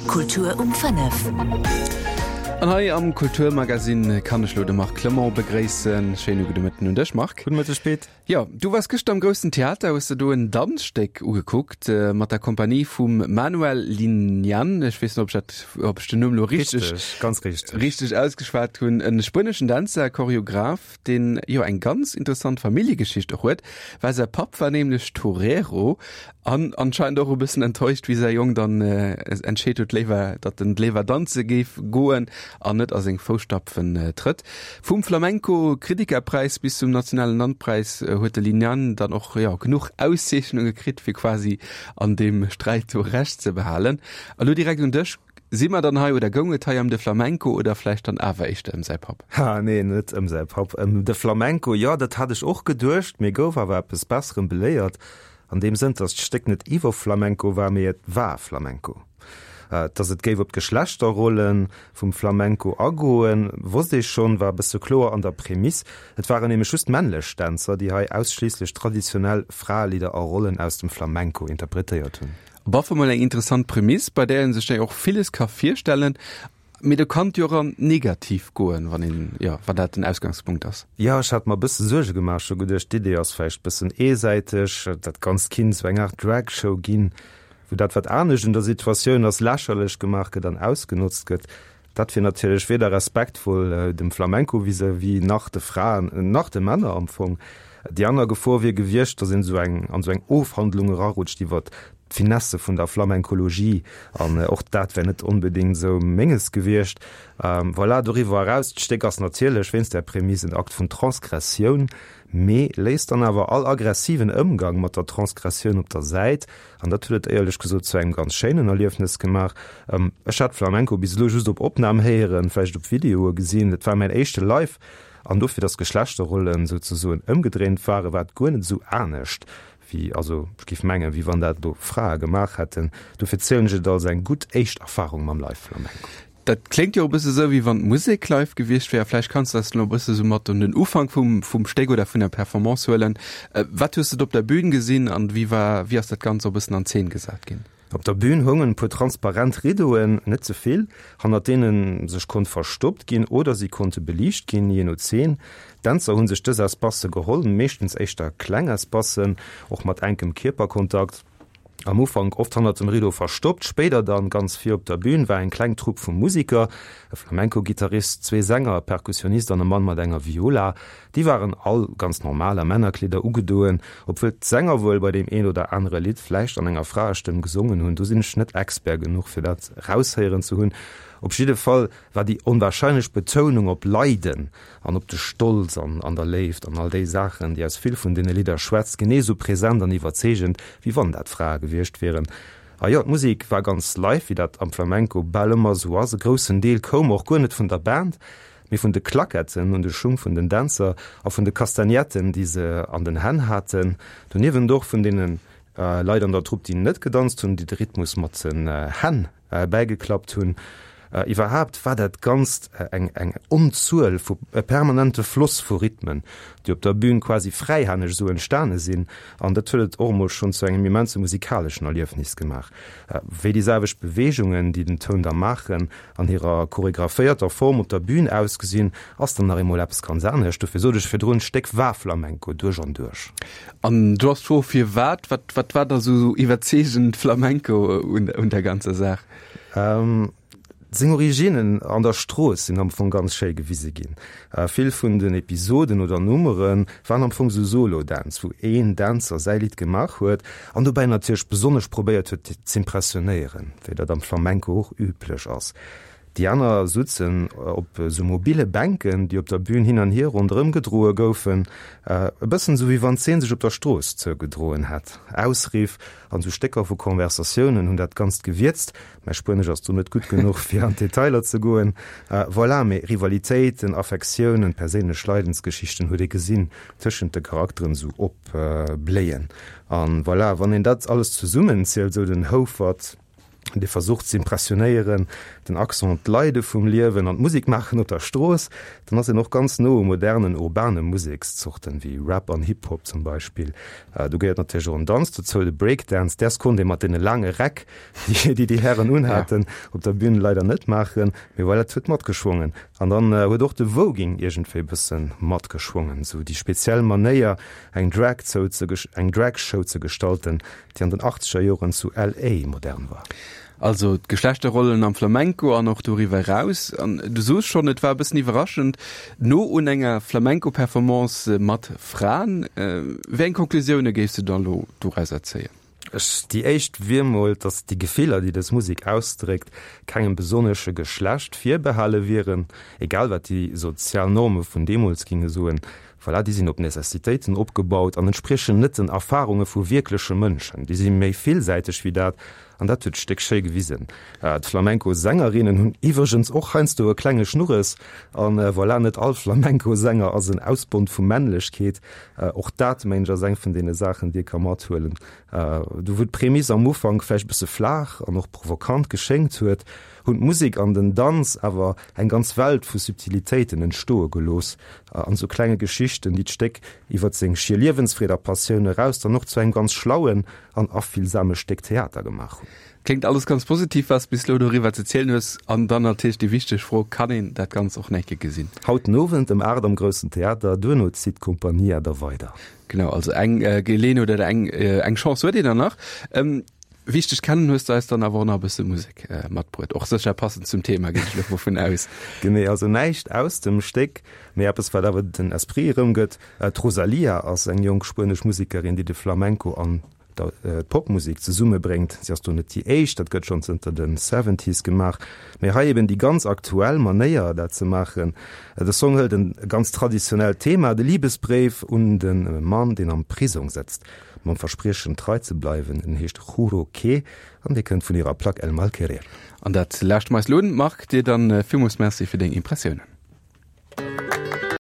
Kultur um 5. An hei am Kulturmagazin kann ech lo de Marc Clement begréissen. Schéine gudde Mëtten un dech, Marc. Gudde Mëtteg, Pit. Jo, du waars gëschter am Groussen Theater, hues de do en Danzstéck ugekuckt mat der Kompanie vum Manuel Liñán. Ech weess net, ob ech dat, ob ech den Numm lo richteg, Richteg, ganz richteg. richteg ausgeschwat hunn. E spueneschen Dänzer, Choreograph, deen jo eng ganz interessant Familljegeschicht och huet, well säi Papp war nämlech Torero an anscheinend och e bëssen enttäuscht, wéi säi Jong dann entscheet huet, léiwer, datt en léiwer danze géif goen an net a seng Fousstapfen trëtt. Vum Flamenco-Kritikerpräis bis zum nationalen Landpräis huet de Liñán dann och, jo, genuch Auszeechnunge kritt, fir quasi an deem Sträit do Recht ze behalen. A lo direkt un dech, Si mer dann hei, oder goung et hei ëm de Flamenco oder vläicht dann awer éischter ëm säi Papp? Ha, nee, net ëm säi Papp. Ëm de Flamenco, jo, dat hat ech och geduecht, mee gouf awer eppes Besserem beléiert, an deem Sënn, dass d'Stéck net iwwer Flamenco war, mee et war Flamenco. Dass et géif op d'Geschlechterrolle vum Flamenco agoen, wosst ee schonn, war e bësse kloer an der Prämiss. Et waren nämlech just männlech Dänzer, déi hei ausschliisslech traditionell Fraelidder a Rollen aus dem Flamenco interpretéiert hunn. Op alle Fall mol eng interessant Prämiss, bei där een sech jo och villes ka virstellen, mee do kann et jo och an negativ goen, wann een, jo, wann dat den Ausgangspunkt ass. Jo, ech hat mer e bësse Suerge gemaach, ech hu geduecht, d'Idee ass vläicht e bëssen eesäiteg, dat Ganzt kinnt esou eng Aart Drag-Show ginn, wou dat, wat anescht un der Situatioun ass, lächerlech gemaach gëtt an ausgenotzt gëtt. Dat wier natierlech weder respektvoll dem Flamenco vis-à-vis nach de Fraen, nach de Männer am Fong. Déi aner Gefor wier gewiescht, datt een esou eng an esou eng Ofhandlung erarutscht iwwer d'Finesse vun der Flamencologie, an och dat wär net onbedéngt esou Menges gewiescht. Voilà, doriwwer eraus, d'Stéck ass natierlech wéinst där Prämisse en Akt vun Transgressioun, mee léisst dann awer all aggressiven Ëmgang mat der Transgressioun op der Säit An dat huet et éierlech gesot zu engem ganz schéinen Erliefnes gemaach. Ech hat Flamenco bis elo just op Opnam héieren, vläicht op Videoe gesinn. Et war mäin éischte Live an dofir, datt d'Geschlechterrollen souzesoen ëmgedréint waren, war et guer net esou anescht wéi, also ech géif mengen, wéi wann dat elo Frae gemaach hätten. Dofir zielen ech et als eng gutt éischt Erfarung mam Live-Flamenco. Dat kléngt jo e bësse sou, wéi wann d'Musek live gewiescht wär. Vläicht kanns de eis elo e bësse sou mat un den Ufank vum, vum Stéck oder vun der Performance huelen. Wat hues de do op der Bühn gesinn an wéi war, wéi ass dat Ganzt och e bëssen an Zeen gesat ginn? Op der Bühn houngen e puer transparent Riddoen, net ze vill, hannert deene sech konnt verstoppt ginn oder si konnte beliicht ginn, jee no Zeen. D'Dänzer hu sech dës Espacë geholl, meeschtens éischter kleng Espacen, och mat enkem Kierperkontakt. Am Ufank oft hannert dem Rideau verstoppt, spéider dann ganz vir op der Bühn, war eng kleng Trupp vu Musiker, e Flamenco-Gittarist, zwee Sänger, e Perkussionist an e Mann mat enger Viola. Déi waren all ganz normal a Männerkleeder ugedoen, obwuel d'Sänger wuel bei deem een oder anere Lidd vläicht an enger Fraestëmm gesongen hunn. Do sinn ech net Expert genuch fir dat raushéieren ze hunn. Op jidde Fall war déi onwahrscheinlech Betounung op Leiden an op de Stolz an an der Léift an all déi Saachen, déi aus vill vun deene Lidder schwätzt, genee esou present an iwwerzeegend, wéi wann dat Frae gewiescht wieren. A jo, d'Musek war ganz live, wéi dat am Flamenco bal ëmmer esou ass. E groussen Deel koum och guer net vun der Band, mee vun de Claquetten un de Schung vun den Dänzer a vun de Castagnetten, déi se an den Hänn haten. Doniewent och vun deene Leit an der Trupp, déi net gedanzt hunn, déi de Rhythmus mat den Hänn bäigeklappt hunn. Iwwerhaapt war dat Ganzt eng eng Onzuel vu, e permanente Floss vu Rhythmen, déi op der Bühn quasi fräihänneg esou entstane sinn. An dat huet et och emol schonn zu engem immense musikaleschen Erliefnis gemaach. Wéi déi selwecht Beweegungen, déi den Toun da maachen, an hirer choregraphéierter Form op der Bühn ausgesinn, ass dann nach eemol eppes ganz anescht. Dofir sot ech virdrun, d'Stéck war Flamenco duerch an duerch. An du ass d'Fro firwat? Wat, wat war da sou iwwerzeegend Flamenco un, un der ganzer Saach? Ähm, seng Originnen an der Strooss sinn am Fong ganz schéi gewise ginn. Äh, vill vun den Episoden oder Nummere waren am Fong sou Solo-Dänz, wou een Dänzer säi Lidd gemaach huet an dobäi natierlech besonnesch probéiert huet z'impressionéieren, wéi dat am Flamenco och üblech ass. Déi aner sutzen op esou mobile Bänken, déi op der Bühn hin an hier ronderëm gedroe goufen, e bëssen esou wéi wann d'Zeen sech op der Strooss zougedroen hätt. Ausriff an esou Stécker vu Konversatiounen hunn dat Ganzt gewierzt. Mäi Spuenesch ass do net gutt genuch, fir an d'Detailer ze goen. Voilà, mee Rivalitéiten, Affektiounen, perséinlech Leidensgeschichten huet ee gesinn tëschent de Charakteren esou opbléien. An voilà, wann een dat alles zesummenzielt, esou den Houfert. Dee versucht ze impressionéieren, den Accent op d'Leide vum Liewen an d'Musek maachen op der Strooss, dann ass en och ganz no u modernen urbane Musekszorten wéi Rap an Hip Hop zum Beispill. Do gehéiert natierlech och en Danz dozou, de Breakdance. Däers konnt ee mat deene laange Räck, déi déi Hären unhaten, op der Bün leider net maachen, mee voilà, et huet matgeschwongen. An dann huet och de Voguing iergendwéi e bësse matgeschwongen, sou déi speziell Manéier eng Drag eng Drag-Show ze gestalten, déi an den achtzeger Joren zu LA modern war. Also d'Geschlechterrollen am Flamenco an och doriwwer eraus. An du soos schonn, et war e bëssen iwwerraschend, no un enger Flamenco-Performance mat Fraen. Wéi eng Konklusioune géifs du dann elo dorauser zéien? Ech, déi éischt wier mol, datt déi Gefiller, déi dës Musek ausdréckt, kengem besonnesche Geschlecht virbehale wieren, egal wat déi sozial Norme vun deemools ginge soen. Voilà, déi sinn op Necessitéiten opgebaut an entspriechen net den Erfarunge vu wierkleche Mënschen. Déi si méi villsäiteg wéi dat, an dat huet d'Stéck schéi gewisen. D'Flamenco-Sängerinnen hunn iwwregens och heiansdo e klenge Schnurres. An voilà, net all Flamenco-Sänger ass en Ausbond vu Männlechkeet. Och dat, mengen ech, ass eng vun deene Saachen, déi ee ka mathuelen. Do wou d'Prämiss am Ufank vläicht e bësse flaach an och provokant geschéngt huet, hunn d'Musek an den Danz awer eng ganz Welt vu Subtilitéiten entstoe gelooss an sou klenge Geschichten, déi d'Stéck iwwert seng schier Liewensfreed a Passioun eraus dann och zu engem ganz schlauen an afillsame Stéck Theater gemaach hunn. Kléngt alles ganz positiv, wat s bis elo doriwwer ze zielen hues. An dann natierlech déi wichteg Fro, Kann een dat Ganzt och nach eng Kéier gesinn? Haut den Owend ëm 8 am Groussen Theater, duerno zitt d'Compagnia da weider. Genau, also eng Geleeënheet oder eng Chance huet een dann nach. Wéi ech dech kennen, hues de eis dann awer och nach e bësse Musek matbruet. Och sécher passend zum Thema, ginn ech elo dovun aus. Genee, also näischt aus dem Stéck, mee eppes, wat awer den Esprit erëmgëtt. D'Rosalía ass eng jonk spuenesch Musekerin, déi de Flamenco an d'Popmusek zesummebréngt. Si ass do net déi éischt, dat gëtt schonn zënter de Seventies gemaach, mee hei eben déi ganz aktuell Manéier, dat ze maachen. De Song hëlt e ganz traditionellt Thema, de Libesbréif un de Mann, deen am Prisong sëtzt. Mam Verspriechen trei ze bleiwen. En heescht Juro Que an dee kënnt vun hirer Plack El Mal Querer. An dat lauschte mer eis elo un. Marc, dir dann villmools Merci fir deng Impressiounen.